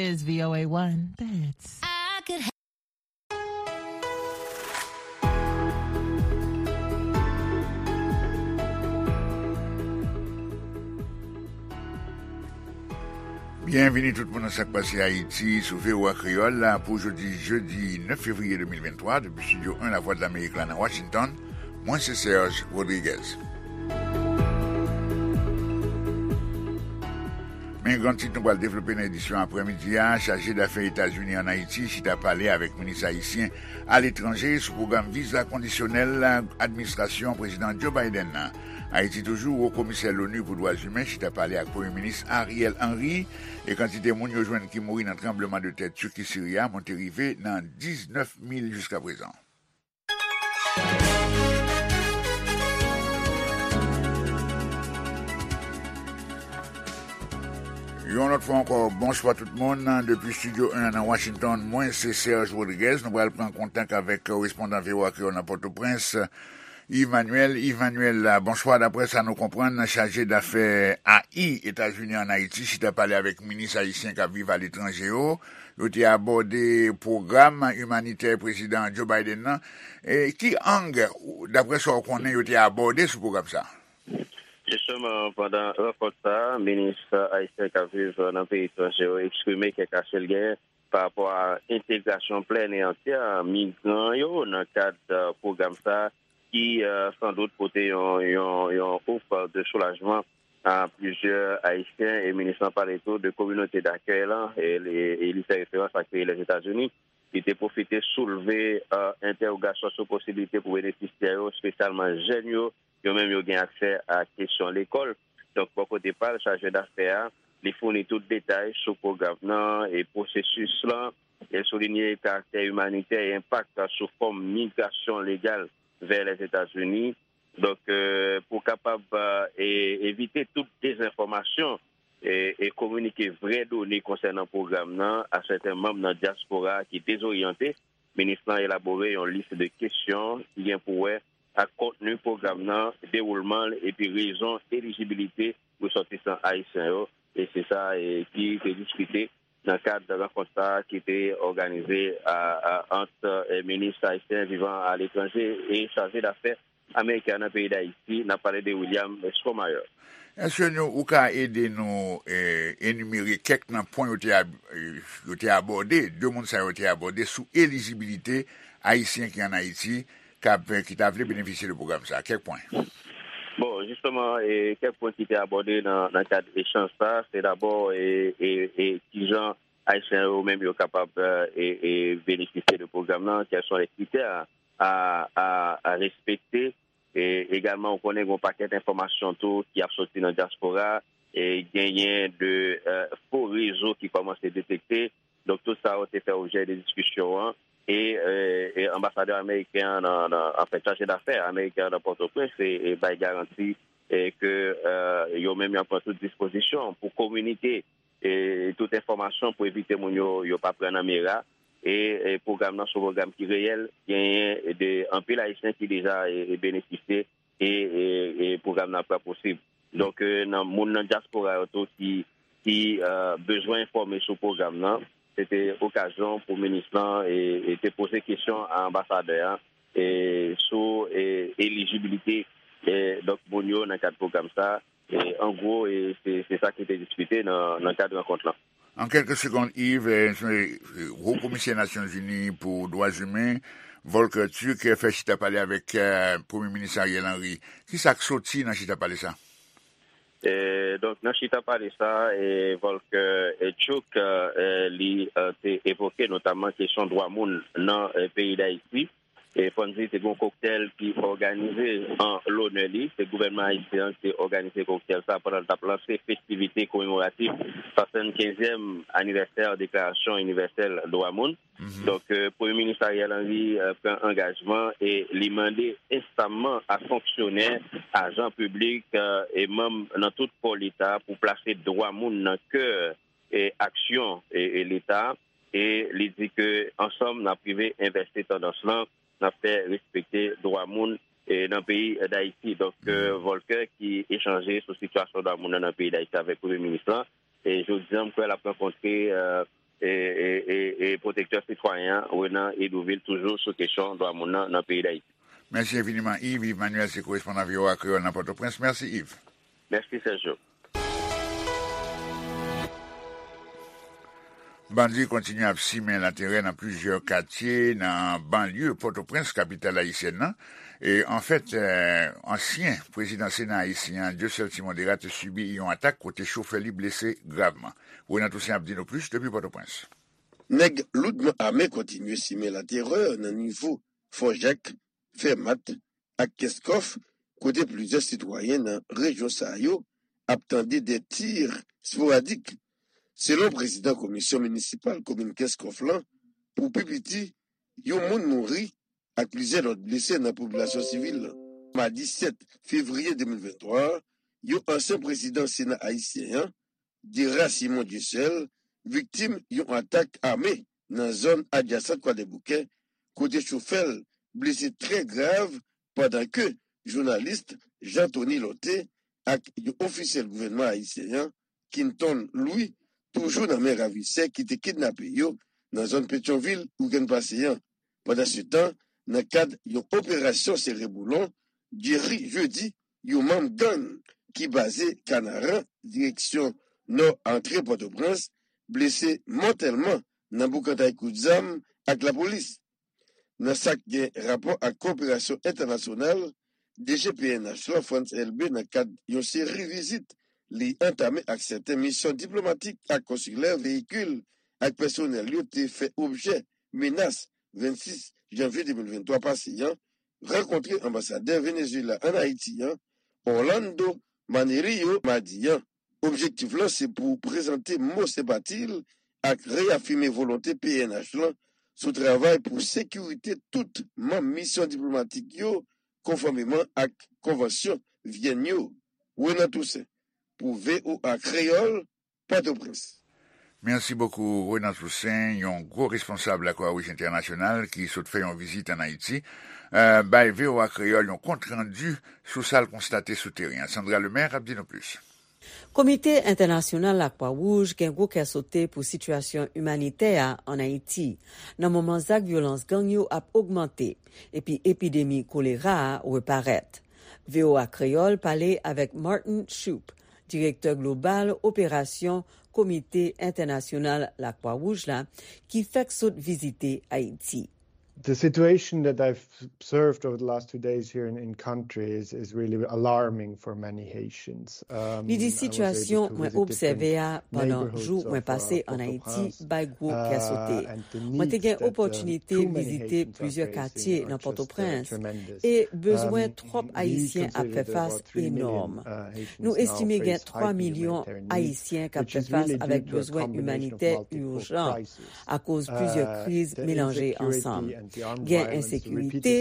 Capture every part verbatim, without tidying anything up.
is V O A one. That's I could Byenvini tout moun nan Sak Pase Ayiti sou V O A Kreyòl la pou jodi jedi nèf fevriye de mil venntwa depi Estidyo en Lavwadlamerik la nan Washington. Mwen se Serge Rodriguez. Men gran tit nou pral devlope nan edisyon aprèmidi a, chaje dafè Etazini ann Ayiti chita pale avèk minis ayisyen aletranje sou pwogram viza kondisyonèl administrasyon Prezidan Joe Biden nan. Ayiti toujou, Wo Komisè l'ONU pou Dwa Imen chita pale ak Premye Minis Ariel Henry, e kantite moun yo jwenn ki mouri nan tranbleman de tè Tiki Siri a monte rive nan diznèf mil jiska prezan. Yon lòt fwa ankò, bonswa tout moun. Depi Estidyo en nan Washington, mwen se Serge Rodriguez. Nou pral pran kontak avèk korespondan V O A Kreyòl nan Pòtoprens, Yves Manuel. Yves Manuel, bonswa. Daprè sa nou konprann, chaje dafè A I Etazini ann Ayiti chita pale avèk minis ayisyen k ap viv aletranje yo. Yo te abòde pwogram imanitè Prezidan Joe Biden nan. E ki ang, daprè sa w konnen, yo te abòde sou pwogram sa a? Jisteman, pandan rankont sa a, minis ayisyen k ap viv nan peyi etranje yo eksprime kèk ache l genyen pa rapò a entegrasyon plèn e antyè migran yo nan kad, eh, pwogram sa a, ki, eh, sandout pote yon, yon, yon ouf de soulajman a plizyè Ayisyen, e minis lan pale tou de kominote dakèy lan, e li, e li fè referans ak peyi Lèzetazini. Li te pwofite soulve, eh, entèwogasyon sou posiblite pou benefisyè yo, espesyalman jèn yo, yo menm yo gen aksè a kesyon lekòl. Donk, bò kote pa l, chaje dafè a, li founi tout detay sou pwogram nan e pwosesis lan. E soulinye karaktè imanitè e enpak sou fòm migrasyon legal vè Lèzetazini. Donk, eh, pou kapab, eh, e, evite tout dezenfòmasyon e, e kominike vrè done konsènan pwogram nan a sèten manm nan dyaspora ki dezoryante, minis lan elabore yon lis de kesyon ki gen pou wè ak kontni pwogram nan, dewoulman l epi rezon elijibilite resòtisan ayisyen yo. E se sa, e, ki te diskite nan kad rankont sa a ki te òganize a, a, ant, e, minis ayisyen vivan aletranje e chaje dafè ameriken an nan peyi Dayiti. N ap pale de William Stromayer. Èske nou, ou ka ede nou, e, enimere kèk nan pwen yo te ab-, e, yo te abòde, de moun sa yo te abòde sou elijibilite ayisyen ki ann Ayiti k ap, ki ta vle benefisye de pwogram sa a? Kèk pwen. Bon, jisteman, e, kèk pwen ki te abòde nan, nan kad echanj sa a, se dabò, e, e, e, kijan Ayisyen yo menm yo kapab, e, e, benefisye de pwogram nan, quels sont les critères à, à, à respecter. E egalman, ou konnen gen yon pakèt enfòmasyon tou ki ap soti nan dyaspora, e genyen de, e, fo rezo ki kòmanse detekte. Donk, tout sa yo te fè objè de diskisyon an. E, e, e anbasadè ameriken an nan, nan, anfen, chaje dafè ameriken an nan Pòtoprens, e, e bay garanti, e ke, e, yo menm y ap pran tout dispozisyon pou kominike, e, tout enfòmasyon pou evite moun yo, yo pa pran nan mera. E, e pwogram nan se yon pwogram ki reyèl, genyen de anpil Ayisyen ki deja, e, e benefisye e, e, e pwogram nan ap pran posib. Donk, e, nan moun nan dyaspora yo tou ki, ki, e, bezwen enfòme sou pwogram nan, se te okazyon pou minis lan, e, e te poze kesyon a anbasadè a, e, sou, e, elijibilite, e, donk, moun yo nan kad pwogram sa. E, an gwo, e, se, se sa ki te diskite nan, nan kad rankont lan. An kèlke segonn, Yves, e, e, Wo Komisè Nasyonzini pou Dwa Imen, Volker Turk, e, fè chita pale avèk, e, Premye Minis Ariel Henry. Kisa k soti nan chita pale sa? E, donk, nan chita pale sa, e, Volker, e, Turk, e, li, e, te evoke notamman kesyon dwa moun nan, e, peyi Dayiti. E fò n di, te gen yon koktèl ki òganize an lonè li. Se gouvènman ayisyen an ki te òganize koktèl sa pandan l t ap lanse festivite komemoratif swasannkenzyèm anivèsè Deklarasyon Inivèsèl Dwa Moun. Mhm. Donk, e, Premye Minis Ariel Henry, e, pran angajman e li mande ensamman a fonksyonè, ajan piblik, e, e manm nan tout kò Leta pou plase dwa moun nan kè, e, aksyon, e, e Leta. E li di ke ansanm n ap rive envèse tandans lan, n ap fè respekte dwa moun, e, nan peyi Dayiti. Donk, e, Volker ki echanje sou sitiyasyon dwa moun nan, nan peyi Dayiti avèk Premye Minis lan. E jodi a, m kwè l ap rankontre, e, e pwotektè sitwayen an, Renan Hédouville, toujou sou kesyon dwa moun nan, nan peyi Dayiti. Mèsi enfiniman, Yves. Yves Manuel se korespondan V O A Kreyòl nan Pòtoprens. Mèsi, Yves. Mèsi, Sergio. Bandi kontinye ap simen laterè nan plizyè katye nan banlye Pòtoprens, kapital ayisyèn nan. E, anfèt, eh, ansyen prezidan Sena ayisyen an, Dieuseul Simon Dérat, te sibi yon atak kote chofè li blese gravman. Renan Toussaint ap di nou plis depi Pòtoprens. Nèg loudman ame kontinye simen laterè nan nivo Fò Jak, Fèmat ak Kenskòf, kote plizyè sitwayen nan rejyon sa yo ap tande de tir sporadik. Selon prezidan komisyon minisipal komin Kenskòf lan, pou pi piti, yon moun mouri ak plizyè lòt blese nan popilasyon sivil lan. Madi sèt fevriye de mil venntwa a, yon ansyen prezidan Sena ayisyen an, Dérat Simon Dieuseul, viktim yon atak ame nan zòn adjasan Kwadèboukè, kote chofè l blese trè grav, pandan ke jounalis Jean Thony Lorthé ak yon ofisyèl gouvènman ayisyen an, Quinton Louis, toujou nan men ravisè ki te kidnape yo nan zòn Petyonvil wikenn pase an. Pandansetan, nan kad yon operasyon sere boulon, Jerry Jeudi, yon manm gang ki baze Kanaran, direksyon nò antre Pòtoprens, blese mòtèlman nan boukantay kout zam ak lapolis. Nan sa k gen rapò ak koperasyon entènasyonal, D G P N H lan, Frantz Elbé, nan kad yon seri vizit li antame ak sèten misyon diplomatik ak konsilè, veyikil ak pèsonèl yo te fè objè menas vennsis janvye de mil venntwa pase an, rankontre anbasadè Venezuela ann Ayiti an, Orlando Manerio, madi an. Objektif lan se pou prezante mo senpati l ak reyafime volonte P N H lan sou travay pou sekirite tout manm misyon diplomatik yo, konfòmeman ak konvansyon Vyèn yo. Renan Toussaint, pou V O A Kreyòl, Pòtoprens. Mèsi bokou, Renan Toussaint, yon gwo responsab Lakwa Wouj Entènasyonal ki sot fè yon vizit ann Ayiti, eh, bay V O A Kreyòl yon kontrandi sou sa l konstate sou teren an. Sandra Lemaire ap di nou plis. Komite Entènasyonal Lakwa Wouj gen gwo kè sote pou sitiyasyon imanitè a ann Ayiti, nan moman zak vyolans gang yo ap ogmante, epi epidemi kolera a reparèt. V O A Kreyòl pale avèk Martin Shoup, direktè global operasyon Komite Entènasyonal Lakwa Wouj la, ki fèk sot vizite Ayiti. The situation that I've observed over the last two days here in, in country is, is really alarming for many Haitians. Um, Li di, sitiyasyon mwen obsève a pandan jou mwen pase ann Ayiti bay gwo kè sote. Mwen te gen opòtinite vizite plizyè katye nan Pòtoprens, e bezwen twòp Ayisyen ap fè fas enòm. Nou estime gen twa milyon Ayisyen k ap fè fas avèk bezwen imanitè ijan akoz plizyè kriz melanje ansanm. Gen ensekirite,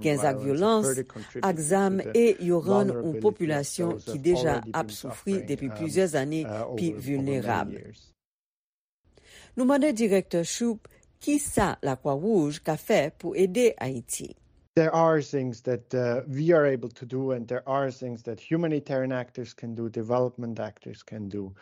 gen zak vyolans ak zam, e yo rann yon popilasyon ki deja ap soufri depi plizyè zane pi vilnerab. Nou mande direktè Shoup kisa Lakwa Wouj ka fè pou ede Ayiti. There are things that, uh, we are able to do, and there are things that humanitarian actors can do, development actors can do.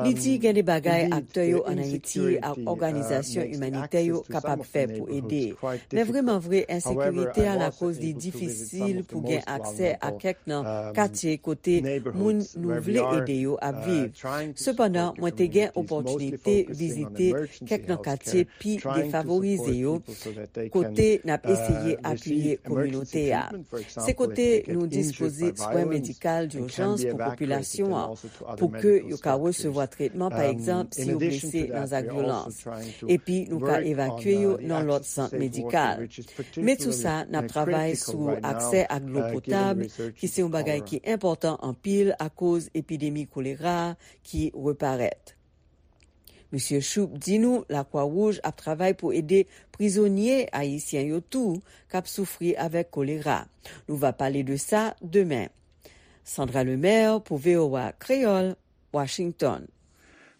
Li di gen de bagay aktè yo ann Ayiti ak òganizasyon imanitè yo kapab fè pou ede. Men vrèman vre, ensekirite a lakoz li difisil pou gen aksè a kèk nan katye kote moun nou vle ede yo ap viv. Sepandan, mwen te gen opòtinite vizite kèk nan katye pi defavorize yo, kote n ap eseye apiye kominote a. Se kote nou dispoze swen medikal dijans pou popilasyon an, pou ke yo ka resevwa tretman, pa egzanp, si yo blese nan zak vyolans. Epi nou ka evakye yo nan lòt sant medikal. Men sou sa, n ap travay sou aksè ak dlo potab, ki se yon bagay ki enpòtan anpil akoz epidemi kolera a ki reparèt. Misye Shoup di nou Lakwa Wouj ap travay pou ede prizonye ayisyen yo tou k ap soufri avèk kolera. Nou va pale de sa demen. Sandra Lemaire pou V O A Kreyòl, Washington.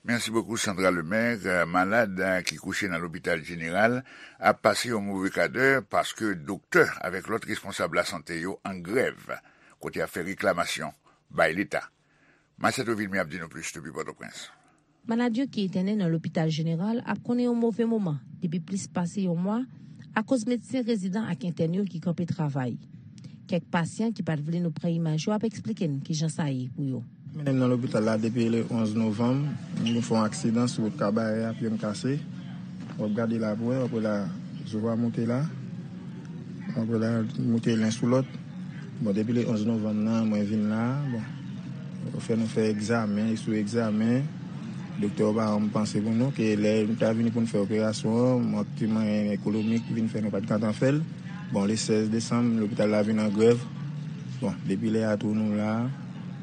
Mèsi bokou, Sandra Lemaire. Malad ki kouche nan lopital jeneral ap pase yon move kadè paske doktè avèk lòt responsab lasante yo an grèv, kote y ap fè reklamasyon bay Leta. Macheto Vilmé ap di nou plis depi Pòtoprens. Malad yo ki entène nan lopital jeneral ap konnen yon move moman depi plis pase yon mwa akoz medsen rezidan ak entèn yo ki kanpe travay. Kèk pasyan ki pa t vle nou pran imaj yo ap eksplike n kijan sa ye pou yo. Mennen m nan lopital la depi le onz novanm. M vin fè yon aksidan sou wout Kabarè a, pye m kase. W ap gade la pou wè, w ap wè la, zo a monte la. W ap wè la, monte len sou lòt. Bon, depi le onz novanm nan, mwen vin la. Bon, yo fè nou fè egzamen, sou egzamen. Doktè yo pa rann panse pou nou, ke lè nou ta vini pou n fè operasyon an, mank ti mwayen ekonomik vin fè nou pa t gentan fè l. Bon, le sèz desanm, lopital la vin an grèv. Bon, depi lè a tou nou la.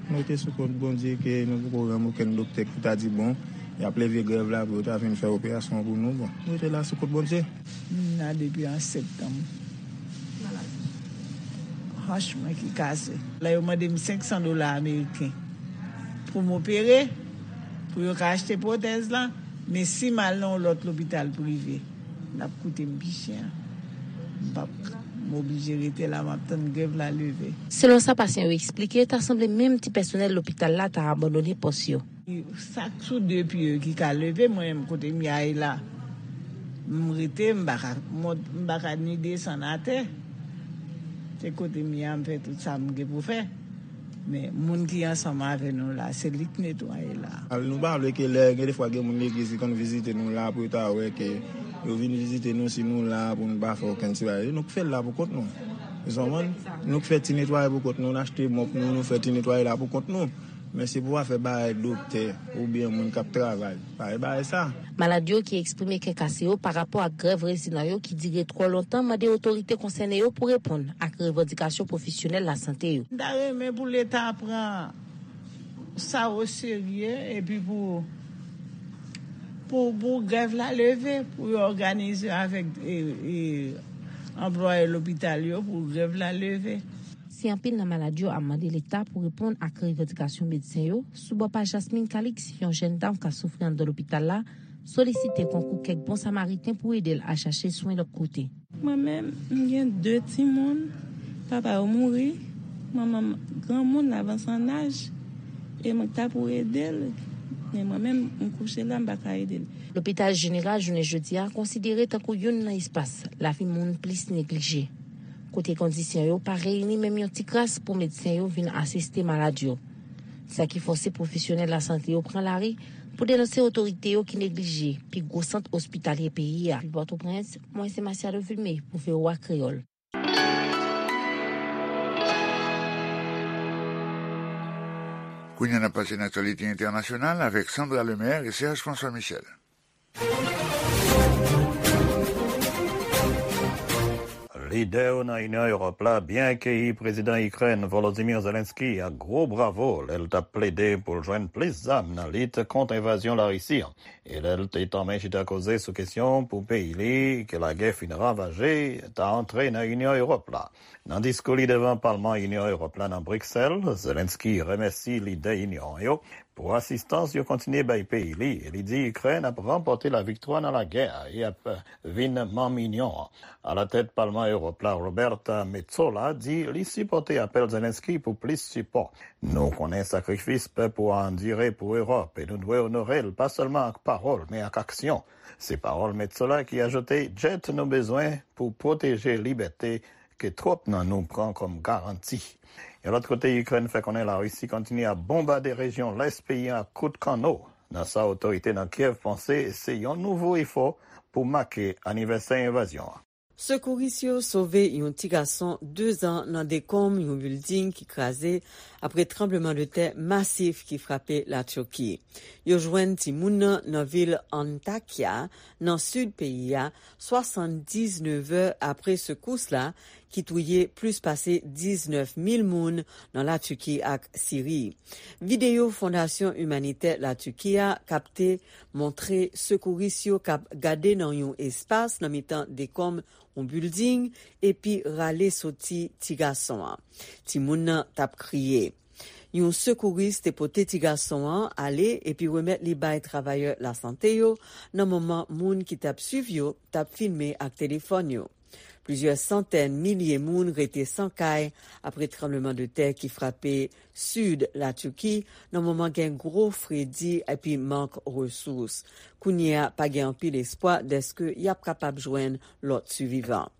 Nou rete sou kont Bondye ke nou poko rann okenn doktè ki ta di, bon, y ap leve grèv la pou yo ta vin fè operasyon pou nou. Bon, nou rete la sou kont Bondye. M la depi an septanm. Hanch mwen ki kase. La, yo mande m senk san dola ameriken pou m opere, pou yo ka achte pwotèz la. Men si m al nan yon lòt lopital prive, l ap koute m pi chè. M p ap, m oblije rete la, m ap tann grèv la leve. Selon sa pasyan yo eksplike, ta sanble menm ti pèsonèl lopital la ta abandone pòs yo. Sa k sou de pye yo ki ka leve, mwen menm kote m ye a la, m rete, m pa ka mont, m pa ka ni desann atè. Se kote m ye a, m fè tout sa m gen pou fè. Men moun ki ansanm avè nou la, se li k netwaye la. Al, nou pa vle ke lè gen defwa gen moun legliz ki konn vizite nou la pou yo ta wè ke yo vin vizite nou, si nou la pou nou pa fè okenn ti bagay. Nou k fè l la pou kont nou. Ou konprann? Nou k fè ti netwaye pou kont nou, n achte mòp nou, nou fè ti netwaye la pou kont nou. Men se pou afè bagay doktè oubyen moun k ap travay. Pa gen bagay sa. Malad yo ki eksprime kè kase yo pa rapò ak grèv rezidan yo ki dire twò lontan mande otorite konsène yo pou reponn ak revandikasyon pwofesyonèl lasante yo. M ta renmen pou Leta pran sa oserye epi pou, pou, pou grèv la leve, pou yo òganize avèk, e, e, anplwaye lopital yo pou grèv la leve. Si anpil nan malad yo ap mande Leta pou reponn ak revandikasyon medsen yo, sou bò pa Jasmine Calix, yon jèn dam k ap soufri anndan lopital la, solisite konkou kèk bon samariten pou ede l al chache swen lòt kote. Mwen menm, m gen de timoun, papa yo mouri, manman m granmoun, l avanse an aj, e mwen ta pou ede l, men mwen menm, m kouche la, m pa ka ede l. Lopital jeneral jounen jodi a konsidere tankou youn nan espas lavi moun plis neglije, kote kondisyon yo pa reyini menm yon ti kras pou medsen yo vin asiste malad yo. Sa ki fòse pwofesyonèl lasante yo pran lari pou denonse otorite yo ki neglije pi gwo sant ospitalye peyi a. Depi Pòtoprens, mwen se Masiado Vilmé pou V O A Kreyòl. Kounye a n ap pase nan aktyalite entènasyonal avèk Sandra Lemaire e Serge François Michel. Lidè yo nan Inyon Ewòp la byen akeyi prezidan Ikrèn Volodymyr Zelensky ak gwo bravo lè l t ap plede pou l jwenn plis zam nan lit kont envazyon Larisi an, e lè l te tanmen chita koze sou kesyon pou peyi li ke lagè fin ravaje ta antre nan Inyon Ewòp la. Nan diskou li devan Palman Inyon Ewòp la nan Briksèl, Zelensky remèsi lidè Inyon an yo pou asistans yo kontinye bay peyi li, e li di Ikrèn ap ranpòte laviktwa nan lagè a e ap vin manm Inyon an. Alatèt Palman Ewòp la, Roberta Metsola di li sipòte apèl Zelensky pou plis sipò. Nou konnen sakrifis pèp ou a andire pou Ewòp, e nou dwe onore l pa sèlman ak pawòl, men ak aksyon. Se pawòl Metsola ki ajoute, djèt nou bezwen pou pwoteje libète ke twòp nan nou pran kòm garanti. Yon lòt kote, Ikrèn fè konnen Larisi kontinye ap bonbade rejyon lès peyi a ak kout kanno, nan sa otorite nan Kyèv panse se yon nouvo efò pou make anivèsè envazyon an. Sekouris yo sove yon ti gason de zan nan dekonm yon bilding ki kraze apre tranblemanntè masif ki frape Latiki. Yo jwenn timoun nan nan vil Antakya, nan sid peyi a, swasanndiznèf è apre sekous la, ki touye plis pase diznèf mil moun nan Latiki ak Siri. Videyo Fondasyon Imanitè Latiki a kapte montre sekouris yo k ap gade nan yon espas nan mitan dekonm yon bilding epi rale soti ti gason an. Timoun nan t ap kriye. Yon sekouris te pote ti gason an ale epi remèt li bay travayè lasante yo nan moman moun ki t ap swiv yo t ap filme ak telefòn yo. Plizyè santèn milye moun rete san kay apre tranblemanntè ki frape sid Latiki nan moman gen gwo fredi epi mank resous. Kounye a, pa gen anpil espwa dèske y ap kapab jwenn lòt sivivan.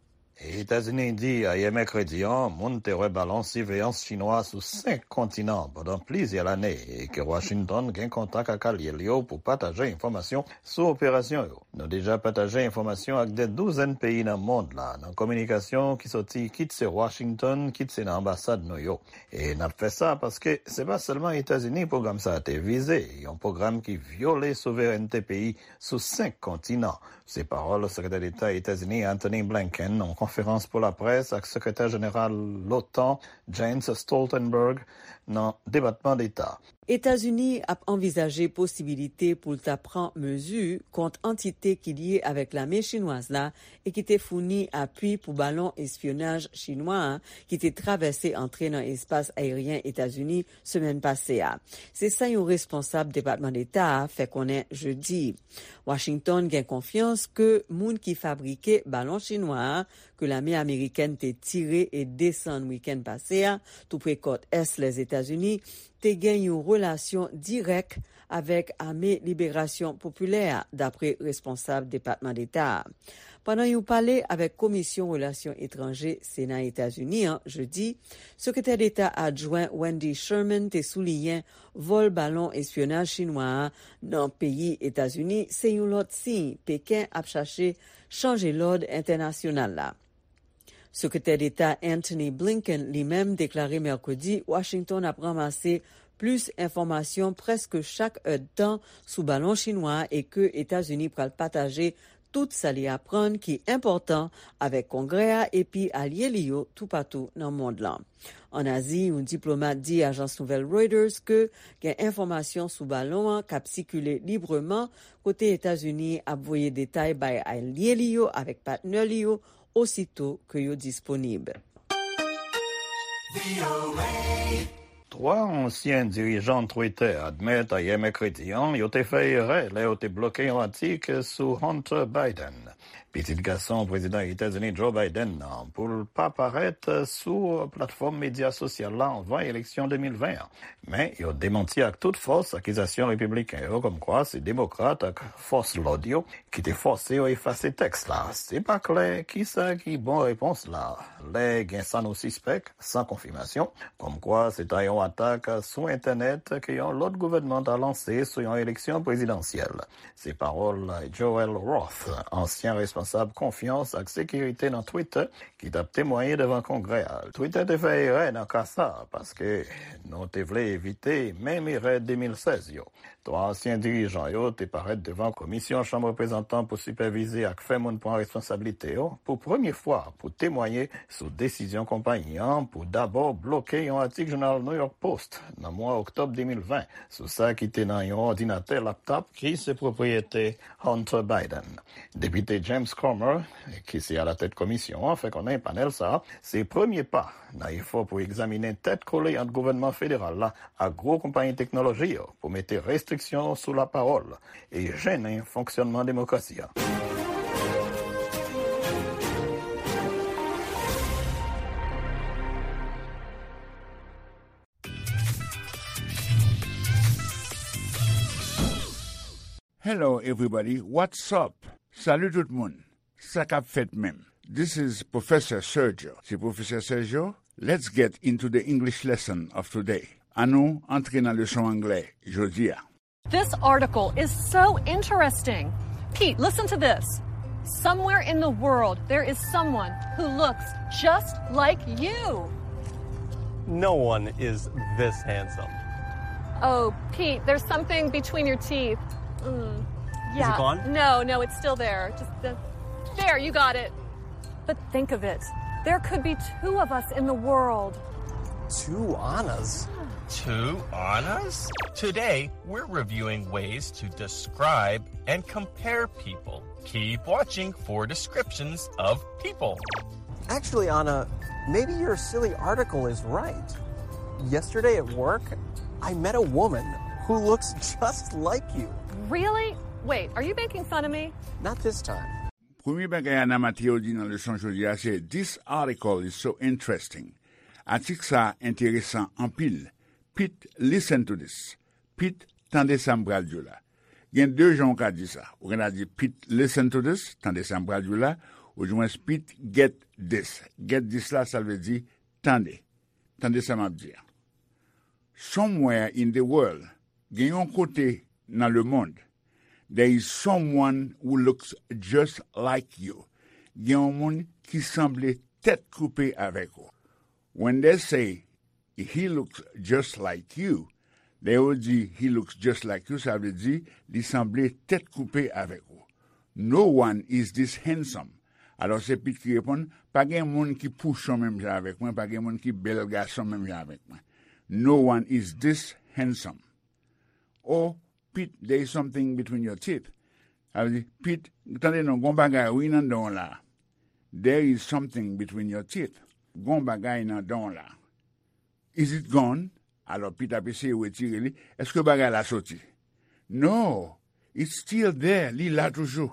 Etazini di ayè mèkredi an, moun te wè balon siveyans chinwa sou senk kontinan pandan plizyè lane e ke Washington gen kontak ak alye l yo pou pataje enfòmasyon sou operasyon yo. Nou deja pataje enfòmasyon ak de douzèn peyi nan mond la, nan kominikasyon ki soti kit se Washington, kit se nan anbasad nou yo. E n ap fè sa paske se pa sèlman Etazini pwogram sa a te vize, yon pwogram ki vyole souverènte peyi sou senk kontinan. Se pawòl Sekretè Deta Etazini Antony Blinken nan yon konferans pou laprès ak Sekretè Jeneral l'OTAN Jens Stoltenberg nan Depatman Deta. Etazini ap anvizaje posibilite pou l ta pran mezi kont antite ki lye avèk lame chinwaz la e ki te founi apui pou balon espyonaj chinwa a ki te travèse antre nan espas ayeryen Etazini semèn pase a. Se sa yon responsab Depatman Deta a fè konnen jedi. Washington gen konfyans ke moun ki fabrike balon chinwa a ke lame amerikèn te tire e desann wikenn pase a, toupre kòt ès Lèzetazini, te gen yon relasyon dirèk avèk Ame Liberasyon Popilè a, dapre responsab Depatman Deta a. Pandan yon pale avèk Komisyon Relasyon Etranje Sena Etazini an jedi, Sekretè Deta Adjwen Wendy Sherman te souliyen vòl balon espyonaj chinwa a nan peyi Etazini se yon lòt siy Peken ap chache chanje lòd entènasyonal la. Sekretè Deta Antony Blinken li menm deklare mèkredi Washington ap ranmase plis enfòmasyon prèske chak èdtan sou balon chinwa a e ke Etazini pral pataje tout sa li aprann ki enpòtan avèk Kongrè a epi alye li yo toupatou nan mond lan. Ann Azi, yon diplomat di ajans nouvèl Reuters ke gen enfòmasyon sou balon an k ap sikile libreman, kote Etazini ap voye detay bay alye li yo avèk patnè li yo osito ke yo disponib. Twa ansyen dirijan Twitter admèt ayè mèkredi an yo te fè erè lè yo te bloke yon atik sou Hunter Biden, pitit gason Prezidan Etazini Joe Biden nan, pou l pa parèt sou platfòm medya sosyal la anvan eleksyon de mil ven an. Men, yo demanti ak tout fòs akizasyon repibliken yo kòmkwa se demokrat ak fòs lòd yo ki te fòse yo efase tèks la. Se pa klè kisa ki bon repons la, lè gen sa nou sispèk, san konfimasyon, kòmkwa se ta yon atak sou entènèt ke yon lòt gouvènman ta lanse sou yon eleksyon prezidansyèl. Se pawòl Joel Roth, ansyen responsab konfyans ak sekirite nan Twitter, ki t ap temwaye devan Kongrè a. Twitter te fè erè nan ka sa a, paske nou te vle evite menm erè de mil sèz yo. Twa ansyen dirijan yo te parèt devan Komisyon Chanm Reprezantan pou sipèvize ak fè moun pran responsablite yo pou premye fwa pou temwaye sou desizyon konpayi an pou dabò bloke yon atik jounal New York Post nan mwa oktòb de mil ven sou sa ki te nan yon òdinatè laptop ki se pwopriyete Hunter Biden. Depite James Comer, ki se alatèt komisyon an, fè konnen panèl sa a se premye pa nan efò pou egzaminen tèt kole ant gouvènman federal la ak gwo konpayi teknoloji yo pou mete restriksyon sou lapawòl e jennen fonksyònman demokrasi a. Hello everybody, what's up? Salut tout moun. Sa k ap fèt menm? This is Professor Sergio. Se Pwofesè Sergio. Let's get into the English lesson of today. Annou antre nan leson anglè jodi a. This article is so interesting. Pete, listen to this. Somewhere in the world, there is someone who looks just like you. No one is this handsome. Oh, Pete, there's something between your teeth. Mm. Yeah. Is it gone? No, no, it's still there. Just the, there, you got it. But think of it. There could be two of us in the world. Two Annas? Two Annas? Today, we're reviewing ways to describe and compare people. Keep watching for descriptions of people. Actually, Anna, maybe your silly article is right. Yesterday at work, I met a woman who looks just like you. Really? Wait, are you making fun of me? Not this time. Premye bagay Ana Mateo di nan leson jodi a se, "This article is so interesting." Atik sa a enteresan anpil. Pete, listen to this. Pete, tande sa m pral di w la. Gen de jan w ka di sa. Ou gen dwa di, "Pete, listen to this." Tande sa m pral di w la. Oudimwens, "Pete, get this." Get this la, sa vle di, tande. Tande sa m ap di a. Somewhere in the world, gen yon kote nan lemonn, there is someone who looks just like you. Gen yon moun ki sanble tèt koupe avèk ou. When they say, "He looks just like you," lè yo di, "He looks just like you," sa vle di, li sanble tèt koupe avèk ou. "No one is this handsome." Alò, se Pete ki reponn, "Pa gen moun ki pouchon menm jan avèk mwen, pa gen moun ki bèl gason menm jan avèk mwen. No one is this handsome." "Oh, Pete, there is something between your teeth." Sa vle di, "Pete, tande non, gon bagay wi nan dan w la." "There is something between your teeth." Gon bagay nan dan w la. "Is it gone?" Alò, Pete ap eseye retire li. "Èske bagay la soti?" "No, it's still there." Li la toujou.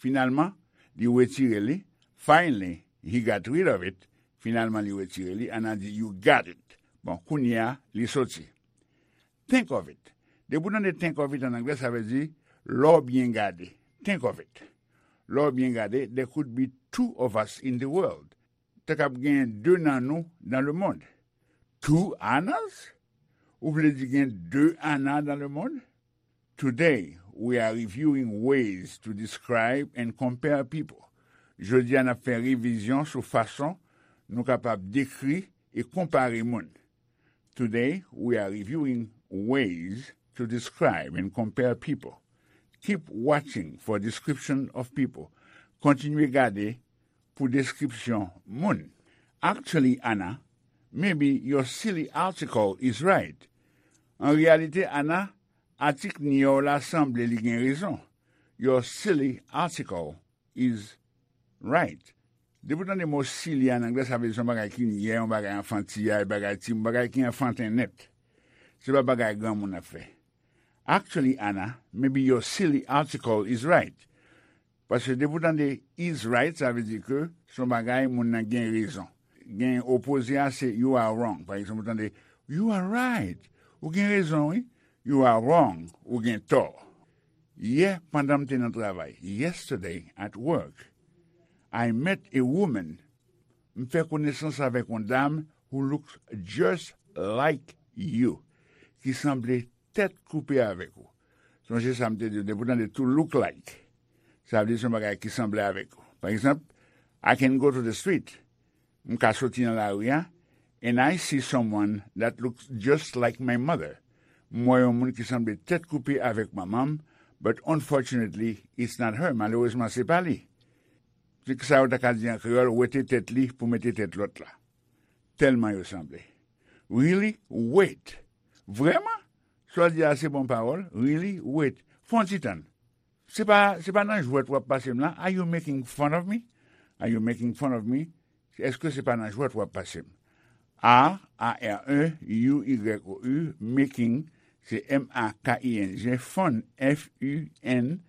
Finalman, li retire li. Finally, he got rid of it. Finalman, li retire li. Ana di, "You got it." Bon, kounye a, li soti. Think of it. Depi w tande think of it an anglè, sa vle di, lè w byen gade. Think of it. Lè w byen gade, there could be two of us in the world. Te kab gen de nan nou nan lemonn. Two Annas? Ou vle di gen de Ana nan lemonn? Today, we are reviewing ways to describe and compare people. Jodi a, n ap fè revizyon sou fason nou kapab dekri e konpare moun. Today, we are reviewing ways to describe and compare people. Keep watching for description of people. Kontinye gade pou deskripsyon moun. Actually, Ana, maybe your silly article is right. An reyalite, Ana, atik nyè w la sanble li gen rezon. Your silly article is right. Depi w tande mo silly an anglè, sa vle di se yon bagay ki nyè, yon bagay anfantiyay, bagay timoun, bagay ki anfanten nèt. Se pa bagay granmoun ap fè. Actually, Ana, maybe your silly article is right. Paske depi w tande is right, sa vle di ke se yon bagay moun nan gen rezon. Gen opoze a, se you are wrong. Pa egzanp, ou tande, "You are right." Ou gen rezon, wi. "You are wrong." Ou gen tò. Yè, pandan m te nan travay, yesterday at work, I met a woman, m fè konesans avèk yon dam who looks just like you, ki sanble tèt koupe avèk ou. Sonje sa m te di w, depi w tande to look like, sa vle di se yon bagay ki sanble avèk ou. Pa egzanp, I can go to the street, m ka soti nan lari a, and I see someone that looks just like my mother. M wè yon moun ki sanble tèt koupe avèk manman m, but unfortunately, it's not her. Malerezman, se pa li. Se sa yo ta ka di an kreyòl, wete tèt li pou mete tèt lòt la. Tèlman yo sanble. Really? Wait. Vrèman? Sa w di a se bon pawòl? Really? Wait. Fè yon ti tann. Se pa, se pa nan jwèt w ap pase m la? Are you making fun of me? Are you making fun of me? Èske se pa nan jwèt w ap pase m? A, A R E, U Y O U, making, se M A K I N G, fun, F U N,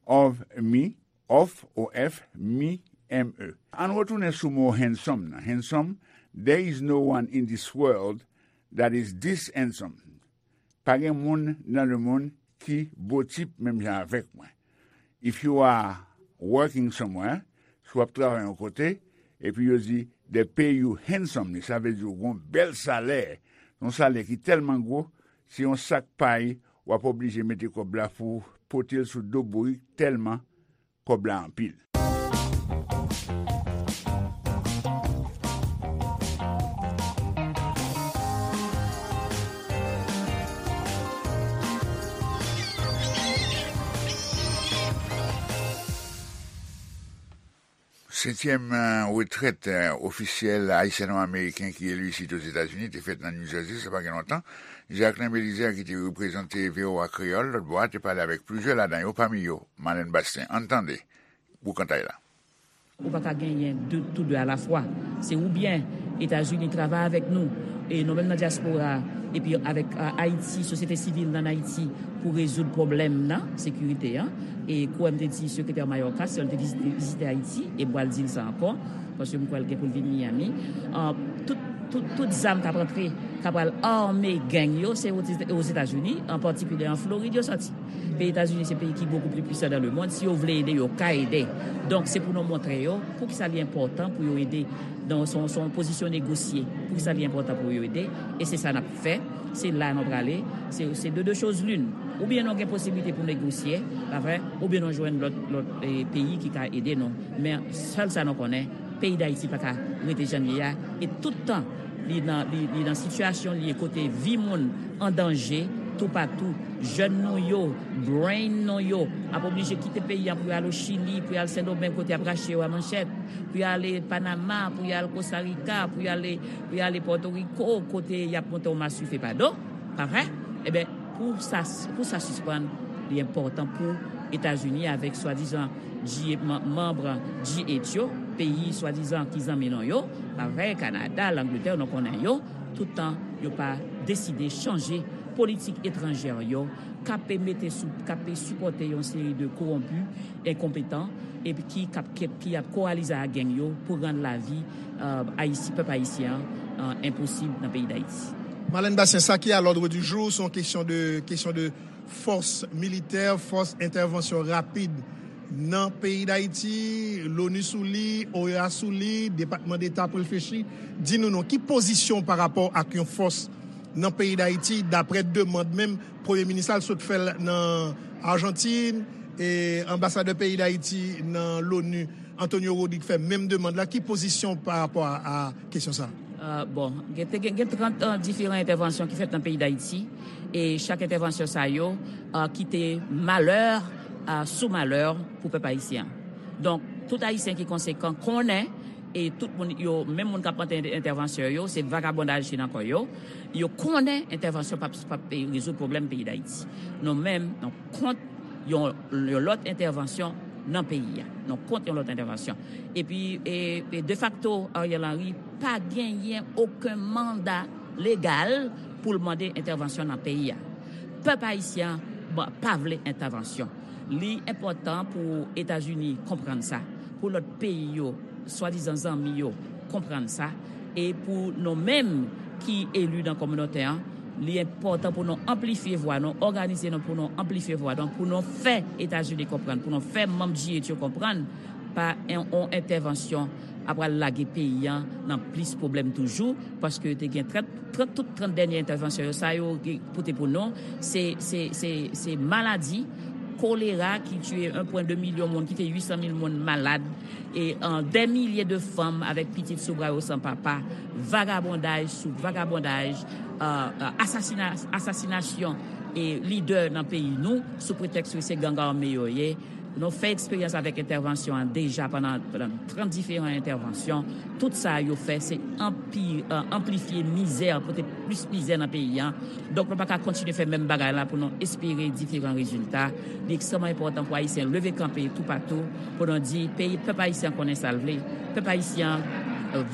of me, of, O F, me, M E. Ann retounen sou mo handsome nan. Handsome, there is no one in this world that is this handsome. Pa gen moun nan lemonn ki botip menm jan avèk mwen. If you are working somewhere, si w ap travay yon kote, epi yo di, "They pay you handsomely," sa vle di w gen yon bèl salè, yon salè ki tèlman gwo, se yon sak pay w ap oblije mete kòb la pou w pote l sou do bourik tèlman kòb la anpil. Setyèm, eh, retrèt, eh, ofisyèl ayisyano-ameriken ki eli isit Ozetazini te fèt nan New Jersey, sa pa gen lontan. Jacquelin Belizaire, ki te reprezante V O A Kreyòl lòtbò a, te pale avèk plizyè ladan yo, pami yo, Marlène Bastien. Ann tande boukantay la. Ou pa ka genyen de, tou de alafwa. Se oubyen Etazini travay avèk nou, e nou menm nan dyaspora, epi avèk Ayiti, sosyete sivil nan Ayiti, pou rezoud pwoblèm nan sekirite an. E kouwè m te di sekretè Mayorkas, lè l te vizite, vizite Ayiti, e m pral di l sa ankò, paske m kwè l gen pou l vin Miami. Tout, tout, tout zam k ap antre, k ap pral ame gang yo, se Ozetazini, an patikilye an Florid, yo sòti. Peyi Etazini se peyi ki bokou pli pwisan dan lemonn. Si yo vle ede, yo ka ede. Donk, se pou nou montre yo poukisa li enpòtan pou yo ede. Donk, se yon pozisyon negosye. Poukisa li enpòtan pou yo ede? E se sa n ap fè. Se la nou prale. Se de de choz lin. Oubyen nou gen posiblite pou negosye, pa vre? Oubyen nou jwenn lòt, lòt peyi ki ka ede nou. Men sèl sa nou konnen, peyi Dayiti pa ka rete jan l ye a. E tout tan li nan, li, li nan sitiyasyon li ye kote vi moun an danje toupatou. Jèn nou yo, brain nou yo ap oblije kite peyi a pou y al o Chili, pou y al Sendomeng kote y ap rache yo a manchèt, pou y ale Panama, pou y al Kostarika, pou y ale, pou y ale Pòtoriko kote y ap monte yon maswife pa do, pa vre? Ebyen, pou sa, pou sa sispann, li enpòtan pou Etazini avèk swadizan G, manm G eight yo, peyi swadizan ki zanmi nou yo, pa vre, Kanada, Langletè, nou konnen yo, tout tan yo pa deside chanje politik etranjè yo, k ap mete sou, k ap sipòte yon seri de kowonpi, enkonpetan, epi ki k ap, ki ap kowalize ak gang yo pou rann lavi Ayiti, pèp ayisyen an enposib nan peyi Dayiti. Marlène Bastien, sa ki a l'ordre du jour, se yon kesyon de, kesyon de fòs militè, fòs entèvansyon rapid nan peyi Dayiti, l'ONU sou li, OEA sou li, Depatman Deta pou reflechi. Di nou non, ki pozisyon w pa rapò ak yon fòs nan peyi Dayiti, daprè demann menm Premye Minis la, l sot fè l nan Ajantin, e anbasadè peyi Dayiti nan l'ONU, Antonio Rodrigue, fè menm demann la. Ki pozisyon w pa rapò a, a kesyon sa a? Bon, gen, te gen, gen trant diferan entèvansyon ki fèt nan peyi Dayiti, e chak entèvansyon sa yo kite malè sou malè pou pèp ayisyen an. Donk, tout Ayisyen ki konsekan konnen, e tout moun yo, menm moun k ap mande entèvansyon yo, se vagabondaj ki nan kò yo. Yo konnen entèvansyon p ap, p ap rezoud pwoblèm peyi Dayiti. Nou menm, nou kont yon, yon lòt entèvansyon nan peyi a. Nou kont yon lòt entèvansyon. Epi, e, e defakto, Ariel Henry pa genyen okenn manda legal pou l mande entèvansyon nan peyi a. Pèp ayisyen an pa vle entèvansyon. Li enpòtan pou Etazini konprann sa, pou lòt peyi yo, swadizan zanmi yo, konprann sa, e pou nou menm ki eli nan kominote an, li enpòtan pou nou anplifye vwa nou, òganize nou pou nou anplifye vwa nou, pou nou fè Etazini konprann, pou nou fè manm G eight yo konprann, pa yon entèvansyon ap pral lage peyi an nan plis pwoblèm toujou, paske te gen trant, trant, tout trant dènye entèvansyon yo, sa yo pote pou nou, se, se, se, se maladi kolera ki tiye en pwen de milyon moun, ki fè uit san mil moun malad, e dè milye de fanm avèk pitit sou bra yo san papa, vagabondaj sou vagabondaj, asasina, asasinasyon e lidè nan peyi nou sou pretèks ke se gang ame yo ye. Nou fè eksperyans avèk entèvansyon an deja pandan, pandan trant diferan entèvansyon. Tout sa yo fè, se anpi, anplifye mizè, pote plis mizè nan peyi an. Donk, nou pa ka kontinye fè menm bagay la pou nou espere diferan rezilta. Li ekstrèmman enpòtan pou Ayisyen leve kanpe toupatou, pou nou di, peyi, pèp ayisyen konnen sa l vle. Pèp ayisyen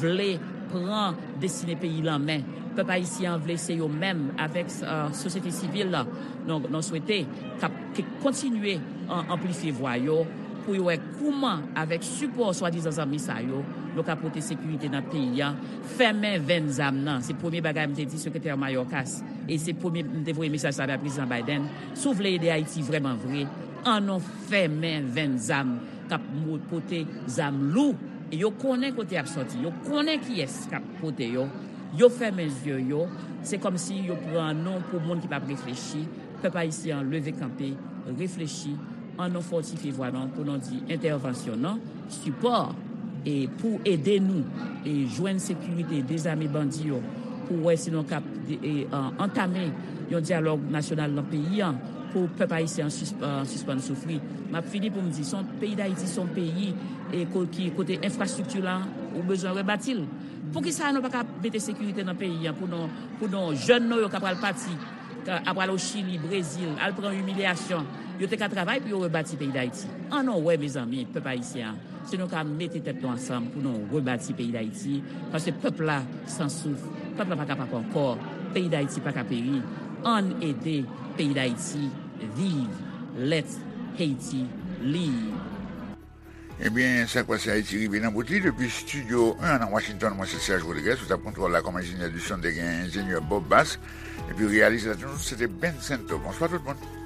vle pran destine peyi l an men. Pèp ayisyen an vle se yo menm, avèk sosyete sivil la, nou, nou swete k ap, ke kontinye anplifye vwa yo, pou yo wè kouman, avèk sipò swadizan zanmi sa yo, nou ka pote sekirite nan peyi an, fèmen venn zam nan. Se premye bagay m te di sekretè Mayorkas, e se premye m te voye mesaj sa bay Prezidan Biden. Si w vle ede Ayiti vrèman vre, ann nou fèmen venn zam k ap pote zam lou. E yo konnen kote y ap sòti, yo konnen kiyès k ap pote yo. Yo fèmen zye yo, se kòmsi yo pran nou pou moun ki p ap reflechi. Pèp ayisyen an leve kanpe, reflechi, ann nou fòtifye vwa nou pou nou di entèvansyon non, sipò, e pou ede nou e jwenn sekirite, dezame bandi yo, pou wè si nou kab antame yon dyalòg nasyonal nan peyi an pou pèp ayisyen an sispann soufri. M ap fini pou m di, se yon, peyi Dayiti se yon peyi e ki kote enfrastrikti la, ou bezwen rebati l. Poukisa nou pa ka mete sekirite nan peyi an pou nou, pou nou jèn nou yo k ap pral pati Ap pral o Chili, Brezil, al pran imilyasyon. Yo te ka travay pou yo rebati peyi Dayiti. Ann nou wè, mezanmi, pèp ayisyen an, si nou ka mete tèt nou ansanm pou nou rebati peyi Dayiti, paske pèp la san souf, pèp la pa kapab ankò, peyi Dayiti pa ka peri. Ann ede peyi Dayiti viv. Let Haiti live. Ebyen, Sa k Pase Ayiti rive nan bout li. Depi Estidyo en nan Washington, mwen se Serge Rodriguez, sou tab kontwòl la kòm enjenyè di son te gen enjenyè Bob Bass, epi reyalizateur nou se te Ben Sento. Bonswa tout moun.